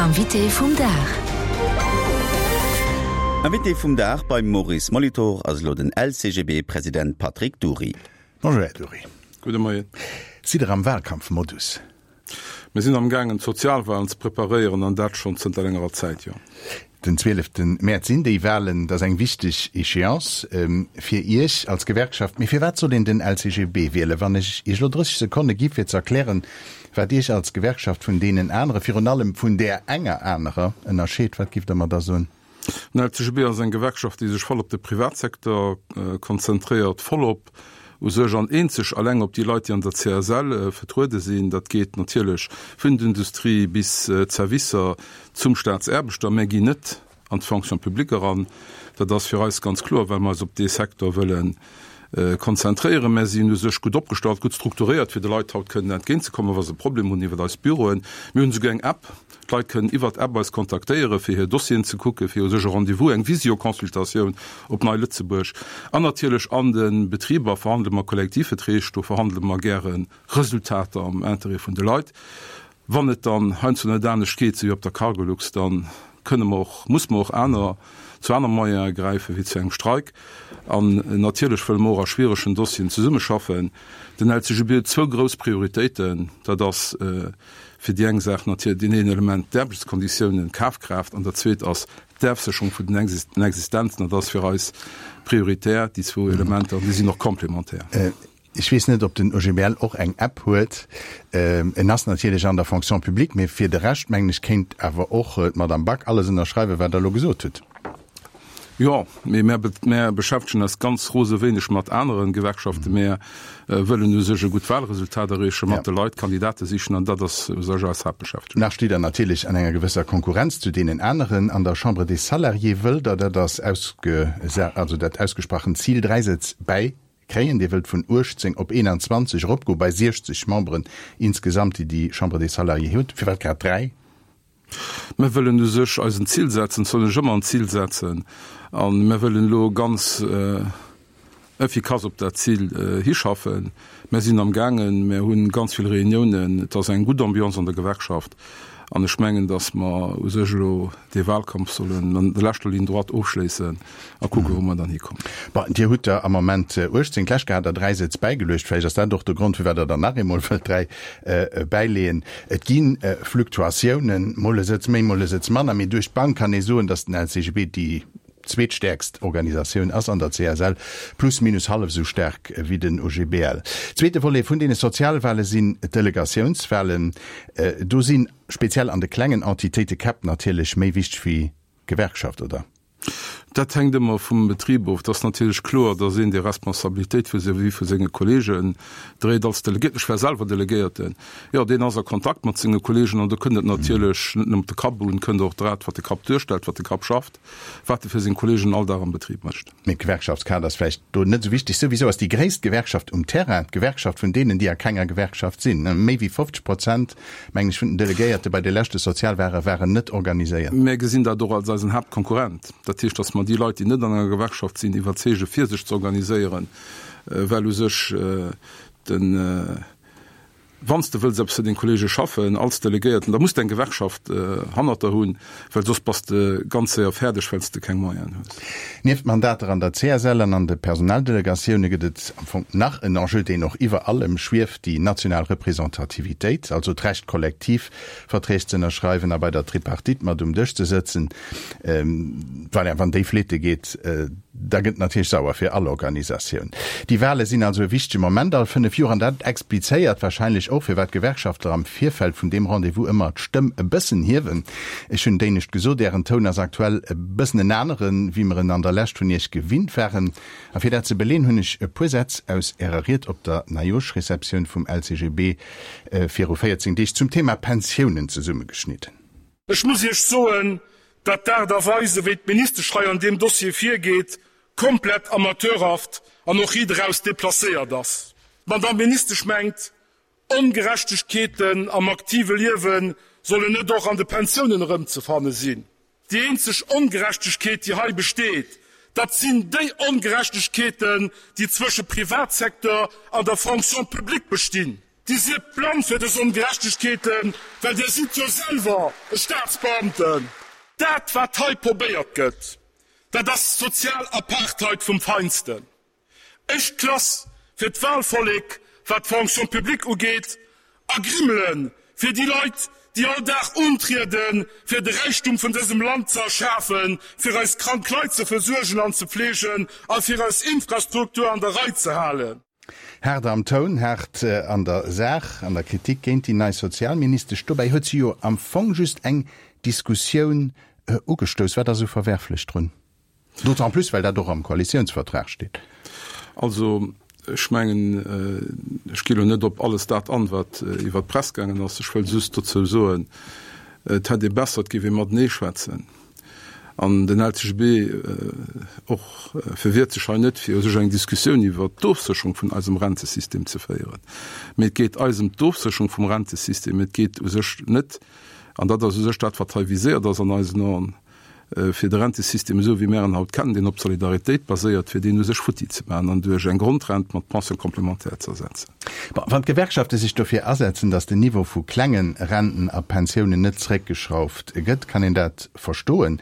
Invité vum Dag. Invité vum Dag beim Maurice Molitor ass elo den LCGB-President Patrick Dury. Bonjour Här Dury. Gudde Moien. Sidd Der am Wahlkampfmodus? Mir sinn am gaangen d'Sozialwahlen ze preparéieren an dat schonn zënter längerer Zäit, jo. Den 12 Mäerz sinn déi Wahlen. Dat ass eng wichteg Échéance fir Iech als Gewerkschaft. Mee firwat soll een den LCGB wielen? Wann ech Iech elo 30 Sekonne gi fir ze erklären, wat Iech als Gewerkschaft vun deenen anere, virun allem vun där enger anerer, ënnerscheet, wat giff Der mer da soen? Den LCGB ass eng Gewerkschaft, déi sech voll op de Privatsecteur konzentréiert, voll op u sech an eenzeg alleng op déi Leit, déi an der CSL vertruede sinn. Dat geet natierlech vun der Industrie bis d'Servicer zum Staatsaarbechter. Mär ginn net an d'Fonction publique eran. Dat ass fir eis ganz kloer, well mer eis op dee Secteur wëlle konzentréieren. Mär sinn u sech gutt opgestallt, gutt strukturéiert, fir de Leit haut kënnen entgéintzekommen, wa se e Problem hunn iwwer eis Büroen. Mir hunn esouguer eng App. D'Leit kënnen iwwert d'App eis kontaktéieren, fir hir Dossieren ze kucken, fir u sech e Rendez-vous, eng Visio-Consultatioun op Nei Lëtzebuerg. An natierlech an de Betriber verhandele mer Kollektivverträg, do verhandele mer gäre Resultater am Interêt vun de Leit. Wann et dann heiansdo net anescht geet, sou wéi op der Cargolux, da kënne mer och, muss mer och aner, zu aner Moyene gräifen, wéi zu engem Streik. An natierlech wëlle mer och a schwieregen Dossieren zesummeschaffen. Den LCGB huet zwou grouss Prioritéiten, dat ass, Fir déi eng Saach natierlech deen een Element, d'Aarbechtskonditiounen, d'Kafkraaft, an dat zweet ass d'Ofsécherung vun den Existenzen. Dat ass fir eis prioritär, déi zwou Elementer, an déi sinn och complémentaire. Ech weess net, ob den OGBL och eng App huet. En ass natierlech an der Fonction publique, mee fir de Rescht, mengen ech, kéint awer och d'Madame Back alles ënnerschreiwen, wat Der elo gesot hutt. Jo, mee mär, mär beschäftegen eis ganz rose wéineg mat anere Gewerkschaften. Mär wëllen u sech e gutt Wahlresultat erreechen, mat de Leit Kandidate sichen, an dat ass u sech eis Haaptbeschäftegung. Nach steet Der natierlech an enger gewësser Konkurrenz zu deenen aneren. An der Chambre des Salariés wëllt Der, dat ass ausge, also dat ausgesprochent Zil, 3 Sëtz bäikréien. Dir wëllt vun 18 op 21 eropgoen, bei 60 Memberen insgesamt, déi déi Chambre des Salariés huet. Firwat grad 3? Mir wëllen u sech eis en Zil setzen, et soll een sech ëmmer en Zil setzen, a mir wëllen elo ganz effikass op dat Zil hischaffen. Mir sinn am gaangen, mir hu ganz vill Reuniounen, et ass eng gutt Ambiance an der Gewerkschaft an ech mengen, datt mer u sech elo dee Wahlkampf sollen an der leschter Ligne droite ofschléissen a kucken, wou mer dann hikommen. Bon, Dir hutt der am Moment 18, d'lescht Kéier hat Der 3 Sëtz bäigeluecht. Vläicht ass dat och de Grond, firwat Der der nach eemol wëllt 3 bäileeën. Et gi Fluktuatiounen, mol e Sëtz méi, mol e Sëtz manner, mee duerch d'Bank kann ee soen, datt den LCGB déi zweetstäerkst Organisatioun ass an der CSL, plus minus hallef esou staark wéi den OGBL. Zweete Volet vun deene Sozialwale sinn d'Delegatiounswalen. Do si speziell an de klengen Entitéite Käpp natierlech méi wichteg wéi d'Gewerkschaft, oder? Dat hänkt ëmmer vum Betrib of. Et ass natierlech kloer, datt een déi Responsabilitéit vis-à-vis vu senge Kolleegen dréit als Delegéierten. Ech war selwer Delegéierten. Jo, deen ass a Kontakt mat senge Kolleegen an do kënnt et natierlech net nëmmen op de Kapp un, kënnt och dat, wat de Kapp duerstellt, wat de Kapp schafft, wat e fir seng Kolleegen all Dag am Betrib mécht. Mee d'Gewerkschaftskaart ass vläicht do net esou wichteg. Souwisou ass déi gréisst Gewerkschaft um Terrain d'Gewerkschaft vun deenen, déi a kenger Gewerkschaft sinn. Méi wéi 50 Prozent, mengen ech, vun den Delegéierte bei de leschte Sozialwale waren net organiséiert. Mär gesinn dat och als eisen Haaptkonkurrent. Dat heescht, datt mer déi Leit, déi net an enger Gewerkschaft sinn, iwwerzeege fir sech ze organiséieren, well u sech den, Wann s de wëlls eppes fir deng Kollege schaffen als Delegéierten, da muss de eng Gewerkschaft hannert der hunn, well soss bass de ganz séier fäerdeg, well s de keng Moyenen hues. Nieft Mandater an der CSL an an de Personaldelegatioune gëtt et am Fong nach en Enjeu, deen och iwwer allem schwieft, déi national Representativitéit, also d'Recht Kollektivverträg ze ënnerschreiwen a bei der Tripartite mat um Dësch ze sëtzen. Voilà, wann déi fleete geet, da gëtt et natierlech sauer fir all Organisatioun. Déi Wale sinn also e wichtege Moment all 5 Joer an dat explizéiert wahrscheinlech och, firwat d'Gewerkschaftler am Virfeld vun deem Rendez-vous ëmmer d'Stëmm e bëssen hiewen. Ech hunn d'éinescht gesot, Ären Toun ass aktuell e bëssen en aneren, wéi mer en an der Lescht vun Iech gewinnt waren. A fir dat ze beleen, hunn ech e puer Sätz aus Ärer Ried op der Neijooschreceptioun vum LCGB viru 14 Deeg zum Thema Pensiounen zesummegeschnidden. Ech muss Iech soen, datt d'Aart a Weis, ewéi d'Ministesch hei an deem Dossier virgeet, komplett amateurhaft an och riit eraus deplacéiert ass. D'Madame Ministesch mengt, Ongerechtegkeeten am aktive Liewe sollen net och an de Pensiounen erëmzefanne sinn. Déi eenzeg Ongerechtegkeet, déi hei besteet, dat sinn déi Ongerechtegkeeten, déi zwësche Privatsecteur an der Fonction publique bestinn. Dir sidd blann fir dës Ongerechtegkeeten, well Dir sidd jo selwer e Staatsbeamten. Dat, wat hei probéiert gëtt, dat ass sozial Apartheid vum Feinsten. Éischt Klass fir d'Wahlvollek, wat d'Fonction publique ugeet, a Grimmele fir déi Leit, déi all Dag untrieden, fir de Räichtum vun dësem Land ze erschafen, fir eis krank Leit ze versuergen an ze fleegen a fir eis Infrastruktur an der Rei ze halen. Haart am Toun, haart an der Saach, an der Kritik géint déi nei Sozialministesch. Dobäi huet si jo am Fong just eng Diskussioun ugestouss. Wat ass esou verwerflech drun? D'autant plus, well dat och am Koalitiounsvertrag steet. Also, ech mengen, ech gi lo net op alles dat an, wat iwwert d'Press gaangen ass. Ech wëll just dozou soen, et hätt ee besser, et géif ee matenee schwätzen. An den LCGB och verwiert sech hei net, fir u sech eng Diskussioun iwwert d'Ofsécherung vun eisem Rentesystem ze féieren. Mee et geet eis ëm d'Ofsécherung vum Rentesystem. Et geet u sech net, an dat ass u sech dat, wat hei viséiert ass an eisen Aen, fir de Rentesystem esou wéi mär en haut kennen, deen op Solidaritéit baséiert, fir deen u sech futti ze maachen an duerch eng Grondrent mat Pension complémentaire ze ersetzen. Bon, wann d'Gewerkschafte sech dofir asetzen, datt den Niveau vu klenge Renten a Pensiounen net zeréckgeschrauft gëtt, kann een dat verstoen.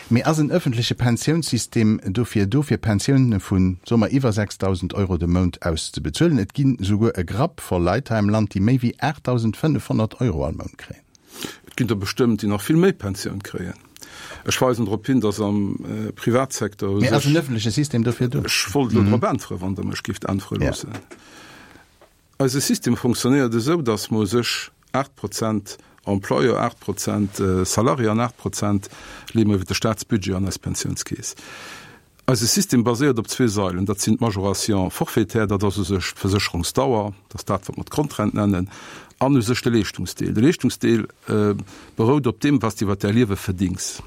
Mee ass en ëffentleche Pensiounssystem dofir do, fir Pensioune vu, soe mer, iwwer 6.000 Euro de Mount auszebezuelen? Et ginn esouguer e Grapp voll Leit hei am Land, déi méi wéi 8.500 Euro all Mount kréien. Et ginn der bestëmmt, déi nach vill méi Pensioun kréien. Ech weisen drop hin, datt am Privatsecteur u sech. Mee ass en ëffentleche System dofir do? Ech wollt elo drop äntweren, wann Der mech géift äntwere loossen. Eise System fonctionnéiert esou, datt mer u sech 8 Prozent Employeur, 8 Prozent Salarié an 8 Prozent leeë mer iwwer de Staatsbudget an eis Pensiounskeess. Eise System baséiert op zwee Sailen, dat sinn d'Majoration forfaitaire, dat ass u sech d'Versécherungsdauer, dat ass dat, wat mer d'Grondrent nennen, an u sech de Leeschtungsdeel. De Leeschtungsdeel berout op deem, wat s de iwwer däi Liewe verdings.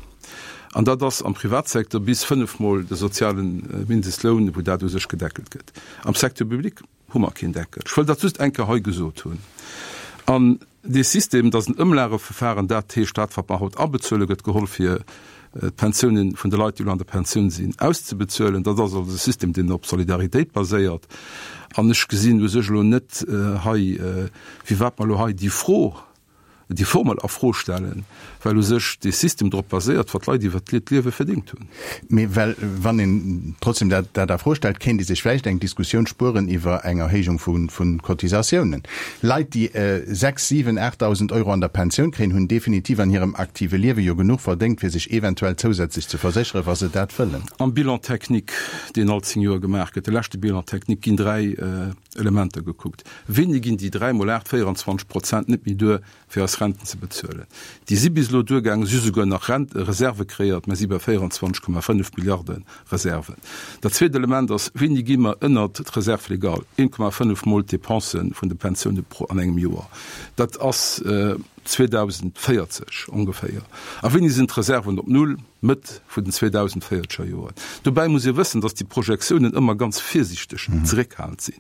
An dat ass am Privatsecteur bis fënnefmol de soziale Mindestloun, wou dat u sech gedeckelt gëtt. Am Secteur public hu mer keen Deckel. Ech wëll dat just eng Kéier hei gesot hunn. An dee System, dat ass en Ëmlageverfahren, dat heescht, dat, wat mer haut abezuelen, gëtt geholl, fir d'Pensiounen vun de Leit, déi elo an der Pensioun sinn, auszebezuelen. Dat ass also e System, deen op Solidaritéit baséiert. An ech gesinn u sech elo net hei, firwat mer elo hei déi Fro déi Formel a Fro stellen, well u sech dee System drop baséiert, wat d'Leit iwwert d'Liewe verdéngt hunn. Mee well, wann een trotzdem dat dat a Fro stellt, kéint ee sech vläicht eng Diskussioun spueren iwwer eng Erhéijung vu vu Cotisatiounen. Leit, déi 6, 7, 8.000 Euro an der Pensioun kréien, hunn definitiv an hirem aktive Liewe jo genuch verdéngt, fir sech eventuell zousätzlech ze versécheren, wa se dat wëllen. Am Bilan technique, deen all 10 Joer gemaach gëtt, de leschte Bilan technique, ginn dräi Elementer gekuckt. Wéini ginn déi 3 mol 8, 24 Prozent net méi duer, fir eis Renten ze bezuelen? Déi si bis elo duergaangen, si hu souguer nach Rent Reserve kreéiert, mer si bei 24,5 Milliarde Reserven. Dat zweet Element ass, Wéini gi mer ënnert d'Reserve légale, 1,5 mol d'Dépense vun de Pensioune pro an engem Joer? Dat ass 2040 ongeféier. A wéini sinn d'Reserven op Null? Mëtt vun den 2040er Joren. Dobäi muss ee wëssen, datt déi Projektiounen ëmmer ganz virsiichteg zeréckhalend sinn.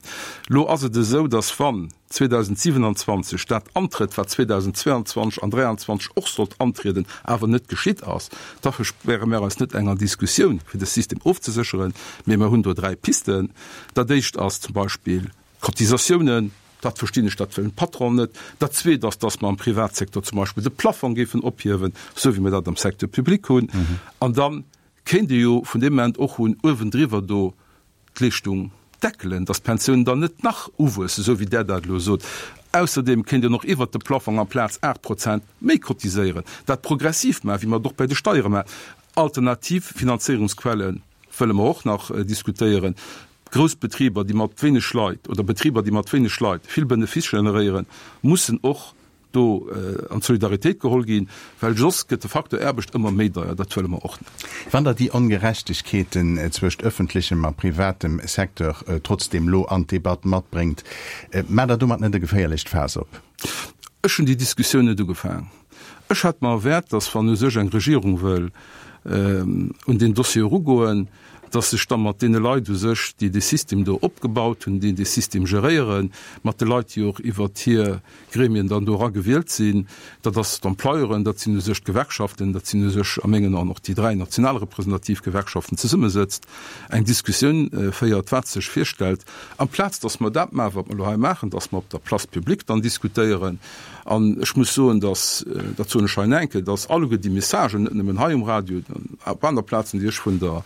Lo ass et esou, datt wann 2027 dat antrëtt, wat 2022 an 2023 och sollt antrieden, awer net geschitt ass, da verspäre mär eis net enger Diskussioun, fir de System ofzesécheren. Mee mer hunn do dräi Pisten. Dat éischt ass zum Beispill d'Cotisatiounen. Dat verstinn ech, dat wëllen d'Patronen net. Dat Zweet ass, dass mer am Privatsecteur zum Beispill de Plafong géifen ophiewen, esou wéi mer dat am Secteur public hunn. An da kéint ee jo vun deem Moment och un uewendriwwer do d'Leeschtung deckelen, dass d'Pensiounen dann net nach uwuessen, esou wéi Der dat elo sot. Ausserdeem kéint een och iwwert de Plafong amplaz 8 Prozent méi cotiséieren, dat progressiv maachen, wéi mer et och bei de Steiere maachen. Alternativ Finanzéierungsquelle wëlle mer och nach diskutéieren. Grouss Betriber, déi mat wéineg Leit, oder Betriber, déi mat wéineg Leit vill Benefice generéieren, mussen och do an d'Solidaritéit geholl ginn, well soss gëtt de Facteur Aarbecht ëmmer méi deier. Dat wëlle mer och net. Wann Der déi Ongerechtegkeeten zwëscht ëffentlechem a privatem Secteur trotzdeem lo an d'Debatt matbréngt, maacht Der domat net e geféierlecht Faass op? Ech hunn déi Diskussioun net ugefaang. Ech hat mer erwaart, datt wann u sech eng Regierung wëll un deen Dossier erugoen, Dass sech da mat deene Leit u sech, déi dee System do opgebaut hunn, déi dee System geréieren, mat de Leit, déi och iwwert hir Gremien dann do era gewielt sinn, dat ass d'Employeuren, dat sinn u sech d'Gewerkschaften, dat sinn u sech a mengen Aen och déi dräi national representativ Gewerkschaften, zesummesëtzt, eng Diskussioun féiert, wat sech virstellt, amplaz dass mer dat maachen, wat mer elo hei maachen, dass mer op der Place publique dann diskutéieren. An ech muss soen, dass, dat soen ech hei nach eng Kéier, dass alleguer déi Messagen, net nëmmen hei um Radio, op aner Plazen, déi ech vun der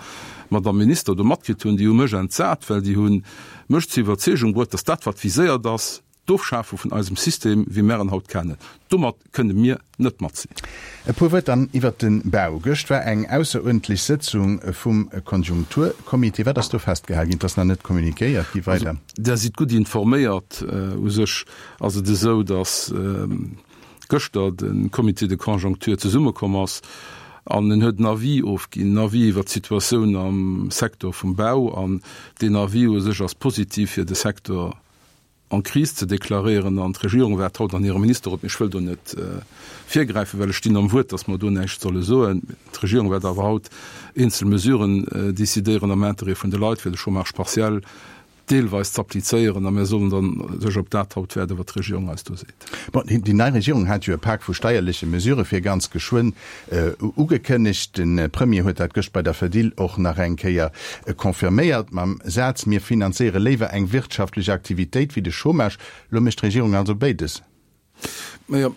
Madame Minister do matkritt hunn, déi hu mech entsat, well déi hu mech zur Iwwerzeegung bruet, dass dat, wat viséiert ass, d'Ofschafe vun eisem System, wéi mär en haut kennen, domat kënne mir net mat sinn. E puer Wuert dann iwwert de Bau. Gëscht war eng ausseruerdentlech Sëtzung vum Konjunkturcomité. Wat ass do festgehal ginn? Et ass nach net communiquéiert gi weider. Also, Der sidd gutt informéiert. U sech ass et esou, datt gëschter de Comité de conjoncture zesummekomm ass an en huet en Avis ofginn, en Avis iwwert d'Situatioun am Secteur vum Bau. An deen Avis u sech ass positiv fir de Secteur en crise ze deklaréieren. An d'Regierung waart haut an hirem Ministerrot, mee ech wëll do net virgräifen, well ech stinn am Wuert, datt mer do näischt solle soen, d'Regierung wäert awer haut eenzel Mesuren decidéieren am Interêt vun de Leit, fir de Chômage partiel deelweis z'applizéieren a mir sollen dann sech op dat haut wäerden, wat d'Regierung eis do seet. Bon, déi nei Regierung hat jo e Pak vu steierleche Mesurë fir ganz geschwënn ugekënnegt. De Premier huet dat gëscht bei der Fedil och nach eng Kéier confirméiert mam Saz, Mir finanzéiere léiwer eng wirtschaftlech Aktivitéit wéi de Chômage. Lo mécht d'Regierung also béides. Majo,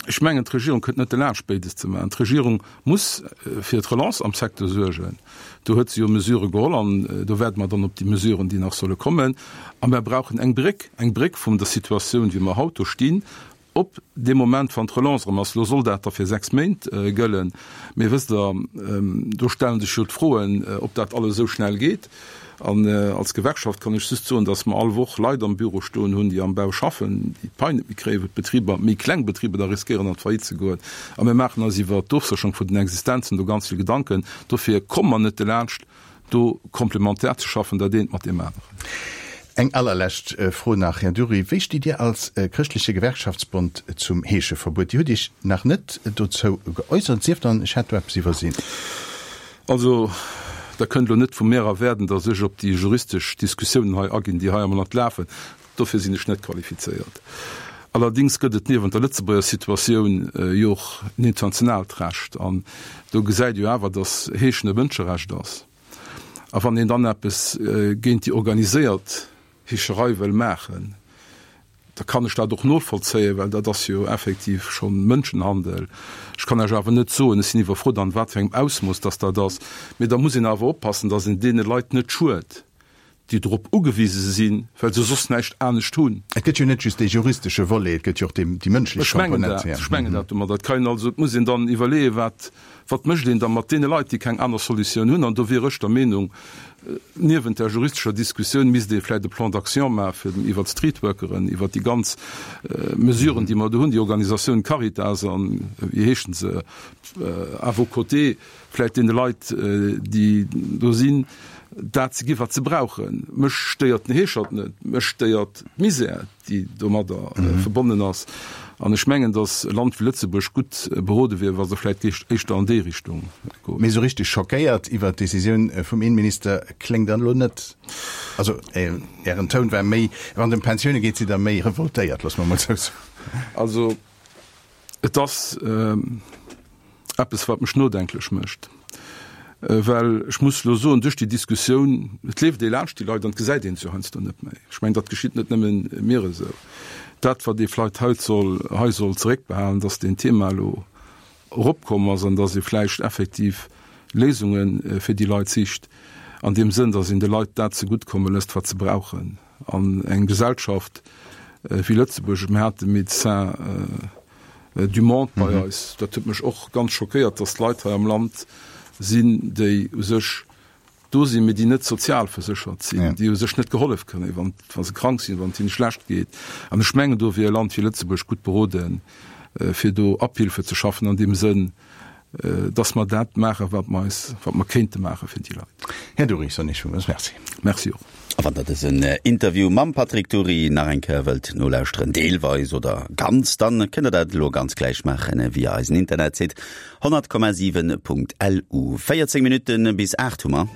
ech mengen, d'Regierung kënnt net delaanscht, béides ze maachen. D'Regierung muss fir d'Relance am Secteur suergen. Do huet se jo Mesurë geholl an do waarde mer dann op déi Mesuren, déi nach solle kommen. A mer brauchen eng Bréck, eng Bréck vum der Situatioun, wéi mer haut do stinn, op dee Moment, wann d'Relance erëm ass. Elo soll dat da fir 6 Méint gëllen. Mee wësst Der, do stelle sech jo d'Froen, ob dat alles esou schnell geet. An als Gewerkschaft kann ech just soen, dass mer all Woch Leit am Büro stoen hunn, déi am Bau schaffen, déi d'Pai net méi kréien, wou d'Betriber, méi kleng Betriber da riskéieren an d'Faillite ze goen. A mir maachen eis iwwert d'Ofsécherung vun den Existenzen do ganz vill Gedanken. Dofir komme mer net delaanscht, do komplementär ze schaffen, dat eent mat deem aneren. Eng allerlescht Fro nach, Här Dury, Wéi stitt Dir als Chrëschtleche Gewerkschaftsbond zum Heescheverbuet? Dir hutt Iech nach net dozou geäussert, sief dann, ech hätt do eppes iwwersinn. Also, Der kënnt elo net vu mir erwaarden, datt ech op déi juristesch Diskussiounen hei aginn, déi hei am Land lafen. Dofir sinn ech net qualifizéiert. Allerdéngs gëtt et niewent der Lëtzebuerger Situatioun jo och en internationaalt Recht. An do gesäit ee jo awer, datt Heeschen e Mënscherecht ass. A wann een dann eppes géint déi organiséiert Heescherei wëll maachen, da kann ech dat och novollzéien, well dat ass jo effektiv scho Mënschenhandel. Ech kann lech awer net soen, ech sinn iwwerfrot an wat fir engem Ausmooss dass dat ass, mee da muss een awer oppassen, dass een deene Leit net schued, déi drop ugewise sinn, well se soss näischt anescht hunn. Et gëtt jo net just dee juristesche Volet, et gëtt jo och déi mënschlech Komponent. Ech mengen dat domadder. Et kann een also, et muss een dann iwwerleeën, wat Wat mécht een da mat deene Leit, déi keng aner Solutioun hunn? An do wier ech der Meenung, niewent der juristescher Diskussioun misst ee vläicht e Plan d'action maache fir iwwert d'Streetworkeren, iwwert déi ganz Mesuren, déi mer do hunn, déi Organisatioun Caritas an, wéi heeschen se, À vos côtés, vläicht deene Leit, déi do sinn, dat ze gi wat se brauchen. Mech stéiert den Heeschert net, mech stéiert d'Misär. déi domadder verbonnen ass. An ech mengen, datt e Land wéi Lëtzebuerg gutt berode wier, wa se vläicht éischter an déi Richtung goen. Mee esou richteg schockéiert iwwert d'Decisioun vum Innenminister kléngt Der elo net. Also Ären Toun war méi, wann et ëm Pensioune geet, sidd Der méi revoltéiert, loosse mer emol esou soen. Also Et ass eppes, wat mech nodenklech mécht, well ech muss elo soen, duerch déi Diskussioun, et leeft ee laanscht déi Leit an et gesäit een se jo heiansdo net méi. Ech mengen, dat geschitt net nëmmen mir esou. Dat, wat ee vläicht haut soll, hei soll zeréckbehalen, dass deen Thema elo eropkomm ass an dass ee vläicht effektiv Léisunge fir déi Leit sicht, an deem Sënn, dass een de Leit dat zeguttkomme lësst, wat se brauchen. An eng Gesellschaft wéi Lëtzebuerg, mir hate Médecins du monde bei eis, dat huet mech och ganz schockéiert, datt Leit hei am Land sinn, déi u sech do sinn, mee déi net sozialverséchert sinn, déi u sech net gehollef kréien, wann wa se krank sinn, wann et hinne schlecht geet. An ech mengen, do wier e Land wéi Lëtzebuerg gutt beroden, fir do Abhilfe ze schaffen an deem Sënn, dass mer dat maachen, wat mer eis, wat mer kéinte maache fir déi Leit. Här Dury, soen ech villmools Merci. Merci och. A wann der dësen Interview mam Patrick Dury nach eng Kéier wëllt nolauschteren, deelweis oder ganz, dann kënnt der dat elo ganz gläich maachen via eisen Internetsite 100,7.lu. 14 Minutten bis 8 hu mer.